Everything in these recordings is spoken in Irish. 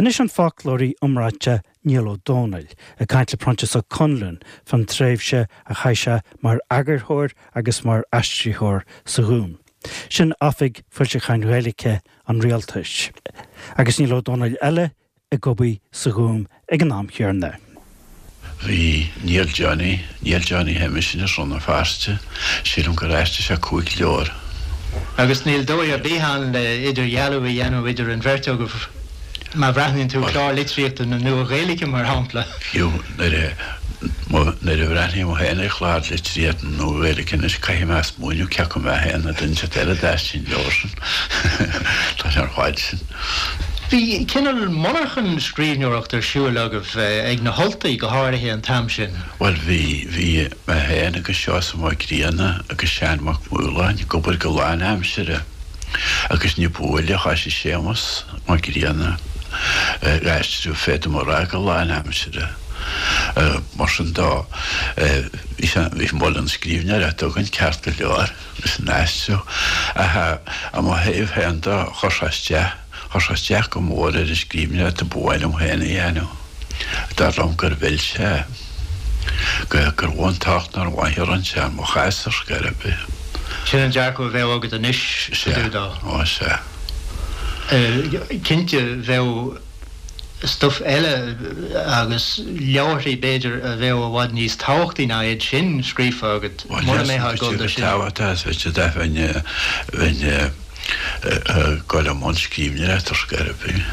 Anois an foclóirí iomráiteach Niall Ó Dónaill ag caint le Proinsias Ó Conluain fán tréimhse a chaith sé mar eagarthóir agus mar aistritheoir sa Ghúm. Sin Oifig Foilseacháin Ghaeilge an Rialtais. Agus Niall Ó Dónaill eile ag obair sa Ghúm ag an am chéanna. Bhí Niall Johnny, Niall Johnny Shéamais as Rann na Feirste, sílim gur aistrigh sé 5 leabhar. Agus níl dóigh ar bith ann le idirdhealú a dhéanamh idir an bheirt agaibh má bhreathnaíonn tú clár litríochta na Nua-Ghaeilge, mar shampla. Fiú nuair a nuair a bhreathnaím féin ar chlár litríochta na Nua-Ghaeilge anois, caithfidh mé smaoineamh cé acu mé féin nó duine inteacht eile a d'aistrigh an leabhar sin. Tá sé ar fad sin. Bhí cineál monarchan scríbhneoireachta ar siúl agaibh ag na hUltaigh go háirithe an t-am sin. Bhuel bhí, bhí mé féin agus Seosamh Mac Grianna agus Seán Mac Maoláin ag obair go lánaimseartha agus ní ba mhoille thoisigh Séamus Mac Grianna ag aistriú féadaim a rá go lánaimseartha. Mar sin de bhí sé, bhí muileann scríbhneoireachta againn ceart go leor. leis an aistriú. Ach i mo thaobh féin de, chuir sé isteach, chuir sé isteach go mór ar an scríbhneoireacht a ba mhaith liom féin a dhéanamh. Dar liom gur mhill sé, gur mhó an tocht nár mhaith a rinne sé i mo chás ar scor ar bith. Sin an dearcadh a bheadh agat anois fá dtaobh dó. Sea, ó sea. Cinnte, bheadh. stuif eile agus leabharthaí b'fhéidir a bheadh i bhfad níos tábhachtaí ná iad sin scríofa agat mura mbeifeá ag dul do sin. Tábhachtach is féidir a bheinn bheinn ag dul i mbun scríbhneoireachta ar scor ar bith.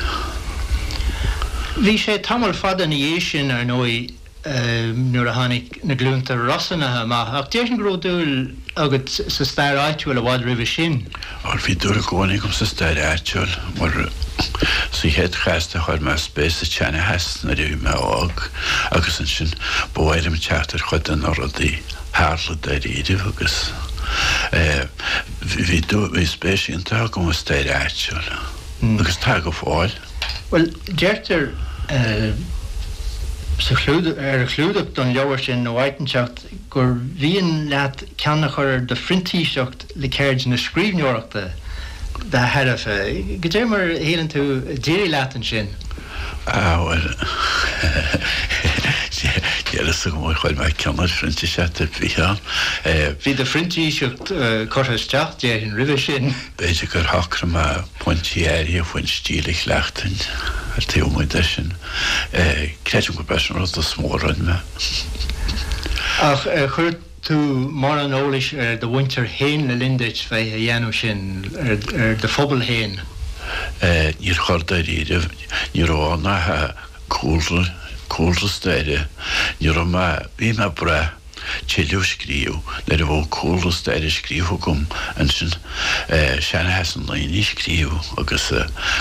Bhí sé tamall fada ina dhiaidh sin, ar ndóigh, nuair a tháinig Na Glúnta Rosannacha amach, ach déarfainn go raibh dúil agat sa stair áitiúil i bhfad roimhe sin. Bhuel, bhí dúil i gcónaí agam sa stair áitiúil, mar sa chéad chás de chuir mé spéis sa tseanchas nuair a bhí mé óg agus ansin ba mhaith liom teacht ar chuid de na rudaí a tharla dáiríribh agus bhí dúil, bhí spéis iontach agam i stair áitiúil agus tá go fóill. Bhuel, deirtear sa chlúdach, ar an chlúdach don leabhar sin nó áit inteacht gur mhian leat ceann a chur ar do phrintíseacht le ceird na scríbhneoireachta dá thairbhe. Goidé mar a shíleann tú a d'éirigh leat ansin? Ah, bhuel, níl a fhios agam ar chuir mé ceann ar phrintíseacht ar bith ann. Bhí do phrintíseacht curtha isteach, déarfainn, roimhe sin. B'fhéidir gur shocraigh mé pointí áirithe faoin stíl a chleachtfainn ar taobh amuigh de sin. Creidim gurb é sin an rud is mó a rinne mé. Ach ar chuir tú mórán eolais ar do mhuintir féin le linn duit bheith a dhéanamh sin, ar do phobal féin? Níor chuir dáiríribh. Ní raibh ann ach cúlra, cúlra staire. Ní raibh mé, bhí mé ag brath. tuilleadh a scríobh. Nuair a bheadh cúlra staire scríofa agam ansin, seanchas na ndaoine a scríobh agus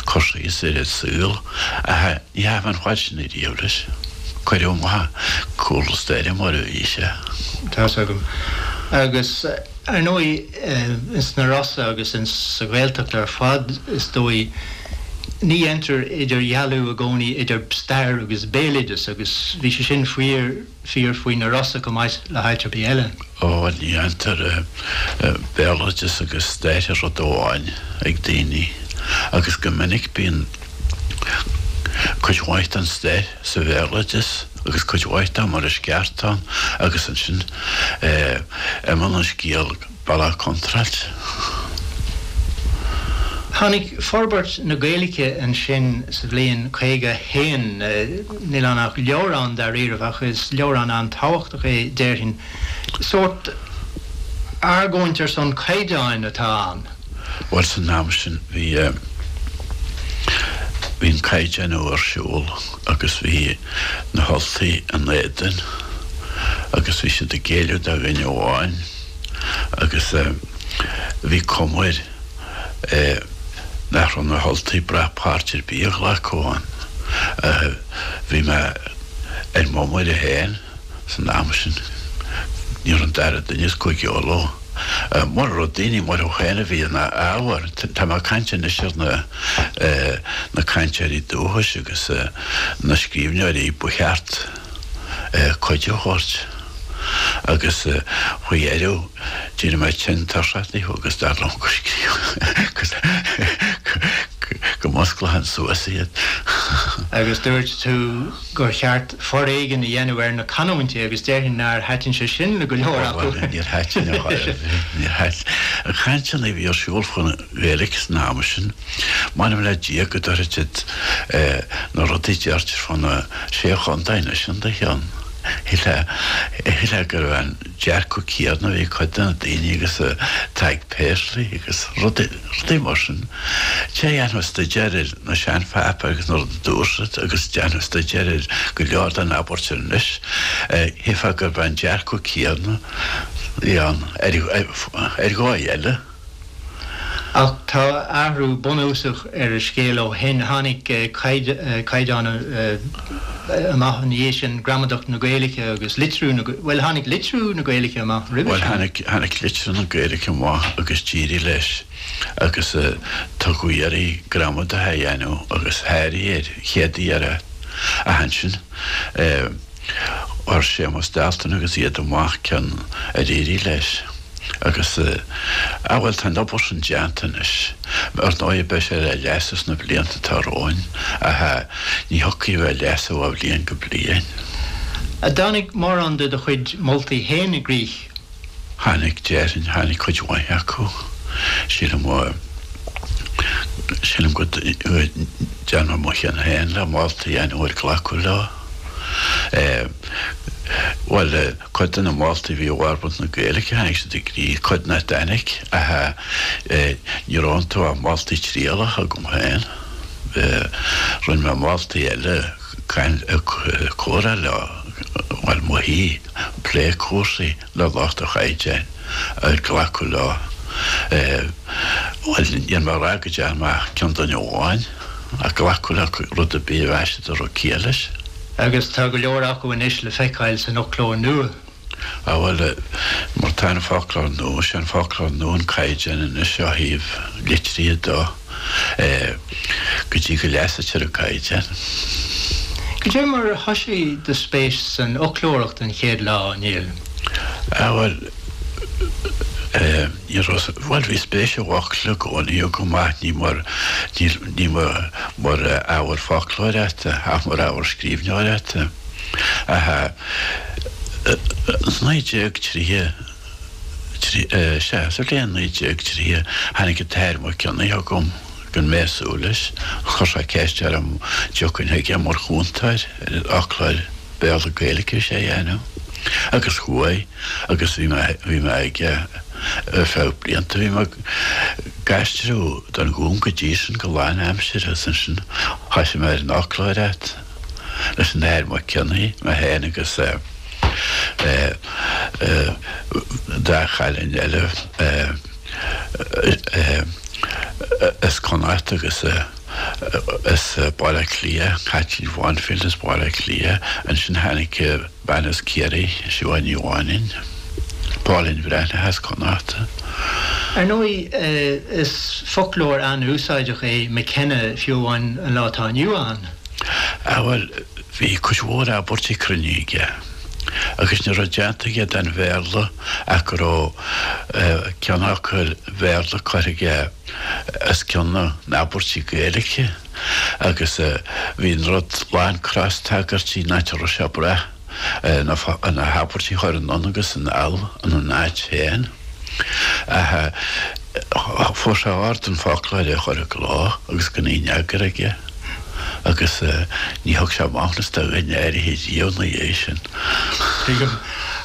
cur síos ar an saol. Ach ní theachaigh mé an fad sin ariamh leis. Cuireadh amach cúlra staire mar a bhí sé. Tá's agam. Agus ar ndóigh, ins na Rosa agus ins sa Ghaeltacht ar fad, is dóigh, ní dhéantar idirdhealú i gcónaí idir stair agus béaloideas agus bhí sé sin fíor, fíor faoi na Rosa chomh maith le háit ar bith eile. Ó, ní dhéantar béaloideas agus stair rud amháin ag daoine agus go minic bíonn cuid mhaith den stair sa bhéaloideas agus cuid mhaith de mar is ceart ann agus ansin imíonn an scéal Bealach contráilte. Tháinig forbairt na Gaeilge ansin sa bhliain 51. Níl ann ach leabhrán dáiríribh ach is leabhrán an-tábhachtach é, déarfainn. Sórt argóint ar son caighdeáin atá ann. Bhuel, san am sin bhí, bhí an caighdeánú ar siúl agus bhí na hUltaigh in éadan agus bhí siad ag géilleadh do dhuine amháin. agus bhí cuma air nach raibh na hUltaigh ag brath páirt ar bith a ghlacadh ann. Bhí mé ar m'iomaire féin san am sin, ní raibh an dara duine as Cúige Uladh. Mura raibh daoine mar thú féin a bhí ina ábhar, tá mé ag caint anois ar na cainteoirí dúchais agus na scríbhneoirí ba cheart cuidiú a thabhairt. Agus faoi dheireadh d'éirigh mé tinn tuirseach díobh agus dar liom gur scríobh go musclóinn suas iad. Agus dúirt tú gur cheart foréigean a dhéanamh ar na canúintí agus déarfainn nár thaitin sé sin le go leor acu. Bhuel, níor thaitin ar chor ar bith. Níor thaitin. An chainteanna a bhí ar siúl faoin Ghaeilge san am sin, m'anam le Dia go dtabharfaidh siad na rudaí a deirtear fá na Sé Chontae anois in do chionn. Shílfeá go raibh an dearcadh céanna a bhí ag cuid de na daoine agus atá ag Paisley agus rudaí, rudaí mar sin. Té a dhéanfadh staidéar ar na seanpháipéir agus na rudaí a dúirt siad agus déanfadh staidéar ar go leor den abairt anois, shílfeá gurb é an dearcadh céanna a bhí ann ar, ar dhóigh eile. Ach tá athrú bunúsach ar an scéal ó shin. Tháinig caighdeán amach ina dhiaidh sin, Gramadach na Gaeilge agus litriú na, bhuel, tháinig litriú na Gaeilge amach roimhe sin. Bhuel, tháinig litriú na Gaeilge amach agus d'éirigh leis agus tugadh iarraidh gramadach a dhéanamh agus sháraigh ar chéad iarraidh. Ach ansin chuir Séamus Dalton agus iad amach ceann ar éirigh leis. Agus, ah bhuel, tá an obair sin déanta anois. Ar ndóigh, beidh sé le leasú sna blianta atá romhainn, ach ní thiocfaidh a bheith á leasú ó bhliain go bliain. An dtáinig mórán de do chuid moltaí féin i gcrích? Tháinig, déarfainn, tháinig cuid mhaith acu. Sílim, sílim go ndearna mé mo chion féin le moltaí a dhéanamh ar glacadh leo. Bhuel, Cuid de na moltaí a bhí i bhforbairt na Gaeilge, tháinig siad i gcrích, cuid nach dtáinig, ach ní raibh iontu ach moltaí trialacha agam féin. Rinne mé moltaí eile, comhrá leo, bhuel, mo thí, plé cúrsaí le lucht an chaighdeáin, ar glacadh leo. Bhuel, níl mé ag rá go dtearn mé ach ceann duine amháin, ach glacadh le rud ar bith a mheas siad a raibh ciall leis. Agus tá go leor acu anois le feiceáil san fhoclóir nua. Á bhuel, mar tá an foclóir nua, sé an foclóir nua an caighdeán anois ó thaobh litrithe de, go dtí go leasaítear an caighdeán. Cad é mar a thoisigh do spéis san fhoclóireacht an chéad lá, a Néill? Á bhuel, ní raibh, bhuel bhí spéis i bhfocla i gcónaí agam ach ní mar, ní mar, mar ábhar foclóireachta ach mar ábhar scríbhneoireachta. Ach 1930, sea, sa bhliain 1930 tháinig an tAthair Mac Cionnaith chugam gan mé ag súil leis. Chuir sé ceist orm an dtiocfainn chuige mar chúntóir ar an fhoclóir Béarla-Gaeilge a bhí sé a dhéanamh. Agus chuaigh agus bhí mé, bhí mé aige ar feadh blianta. Bhí mé ag aistriú don Ghúm go dtí sin go lánaimseartha agus ansin thosaigh mé ar an fhoclóireacht leis an Athair Mac Cionnaith, mé féin agus dá chailín eile as Connacht agus as Baile Átha Cliath, Caitlín Bhanfield as Baile Átha Cliath. Ansin tháinig bean as Ciarraí, Siobhán Ní Mhainín, Pauline Breathnach as Connacht. Ar ndóigh, is foclóir an-úsáideach é McKenna, fiú amháin an lá atá inniu ann. Ah bhuel, bhí cuid mhór abairtí cruinne aige, agus ní raibh déanta aige den Bhéarla ach go raibh ceannfhocail Bhéarla curtha aige os cionn na n-abairtí Gaeilge agus bhí an rud lán cros-tagairtí nach raibh sé ag brath na habairtí a chur anonn agus anall ina n-áit féin. Ach fuair sé ord an foclóir a chur i gcló agus gan aon eagar aige agus ní thug sé maithiúnas do dhuine áirithe riamh ina dhiaidh sin. Tuigim.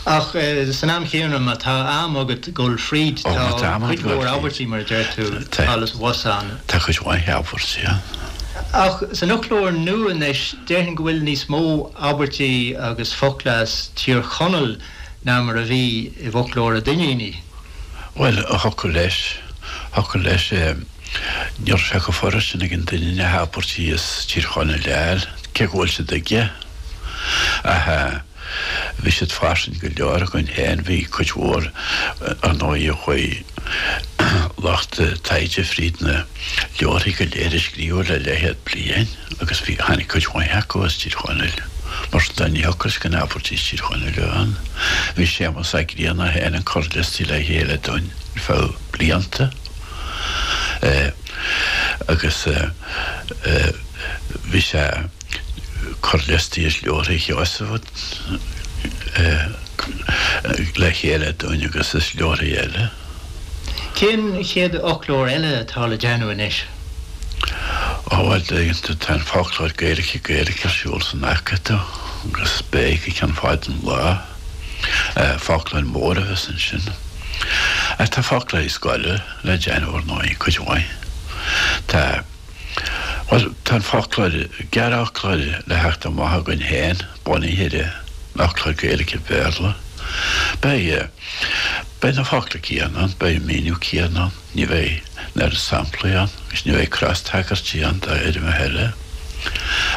Ach san am chéanna, má tá am agat dul fríd, tá cuid mhór abairtí, mar a deir tú, thall is abhus ann. Tá cuid mhaith abairtí ann. Ach san fhoclóir nua anois, déarfainn go bhfuil níos mó abairtí agus focla as Tír Chonaill ná mar a bhí i bhfoclóir an Duinnínigh. Bhuel, thiocfadh leis, thiocfadh leis. Ní raibh sé chomh furast sin ag an Duinníneach abairtí as Tír Chonaill a fháil, cé go bhfuil siad aige. Ach bhí siad fairsing go leor againn féin, bhí cuid mhór, ar ndóigh, chuaigh lucht taighde fríd na leabharthaí go léir a scríobhadh le leathchéad bliain agus bhí, tháinig cuid mhaith acu as Tír Chonaill. Mar sin de, ní thiocfadh leis gan abairtí as Tír Chonaill a bheith ann. Bhí Séamus Ó Grianna féin ag cur liostaí le chéile dúinn ar feadh blianta agus. Bhí sé ag cur liostaí is leabharthaí Sheosaimh le chéile dúinn agus is leabharthaí eile. Cén chéad fhoclóir eile atá le déanamh anois? Ó bhuel, tá an foclóir Gaeilge-Gaeilge ar siúl san Acadamh agus beidh go ceann fada an lá. Foclóir mór a bheas ansin. Ach tá foclóirí scoile le déanamh ar ndóigh, cuid mhaith. Tá, bhuel, tá an foclóir, gearrfhoclóir le theacht amach againn féin, bunaithe ar an fhoclóir Gaeilge-Béarla. Beidh, beidh na focla céanna ann, beidh an míniú céanna ann, ní bheidh an oiread samplaí ann agus ní bheidh crostagairtí ann d'fhoirmeacha eile.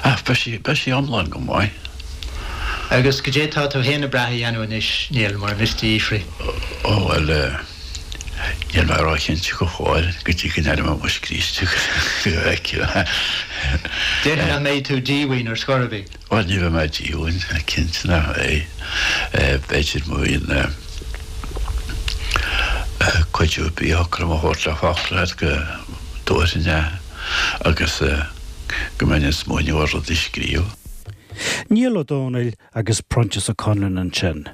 Ach beidh sí, beidh sí iomlán go maith. Agus goidé tá tú féin ag brath a dhéanamh anois, Niall, mura miste a fhiafraí? Ó, bhuel, níl mé róchinnte go fóill, go dtí go n-aireoidh mé mo scríste go bhfeicfidh mé. Déarfainn nach mbeidh tú díomhaoin ar scor ar bith. Bhuel, ní bheidh mé díomhaoin, cinnte nach mbeidh. B'fhéidir má bhíonn cuidiú ar bith a thiocfadh liom a thabhairt le foclóir go dtabharfainn é agus go mbeinn ag smaoineamh ar rud a scríobh. Niall Ó Dónaill agus Proinsias Ó Conluain ansin.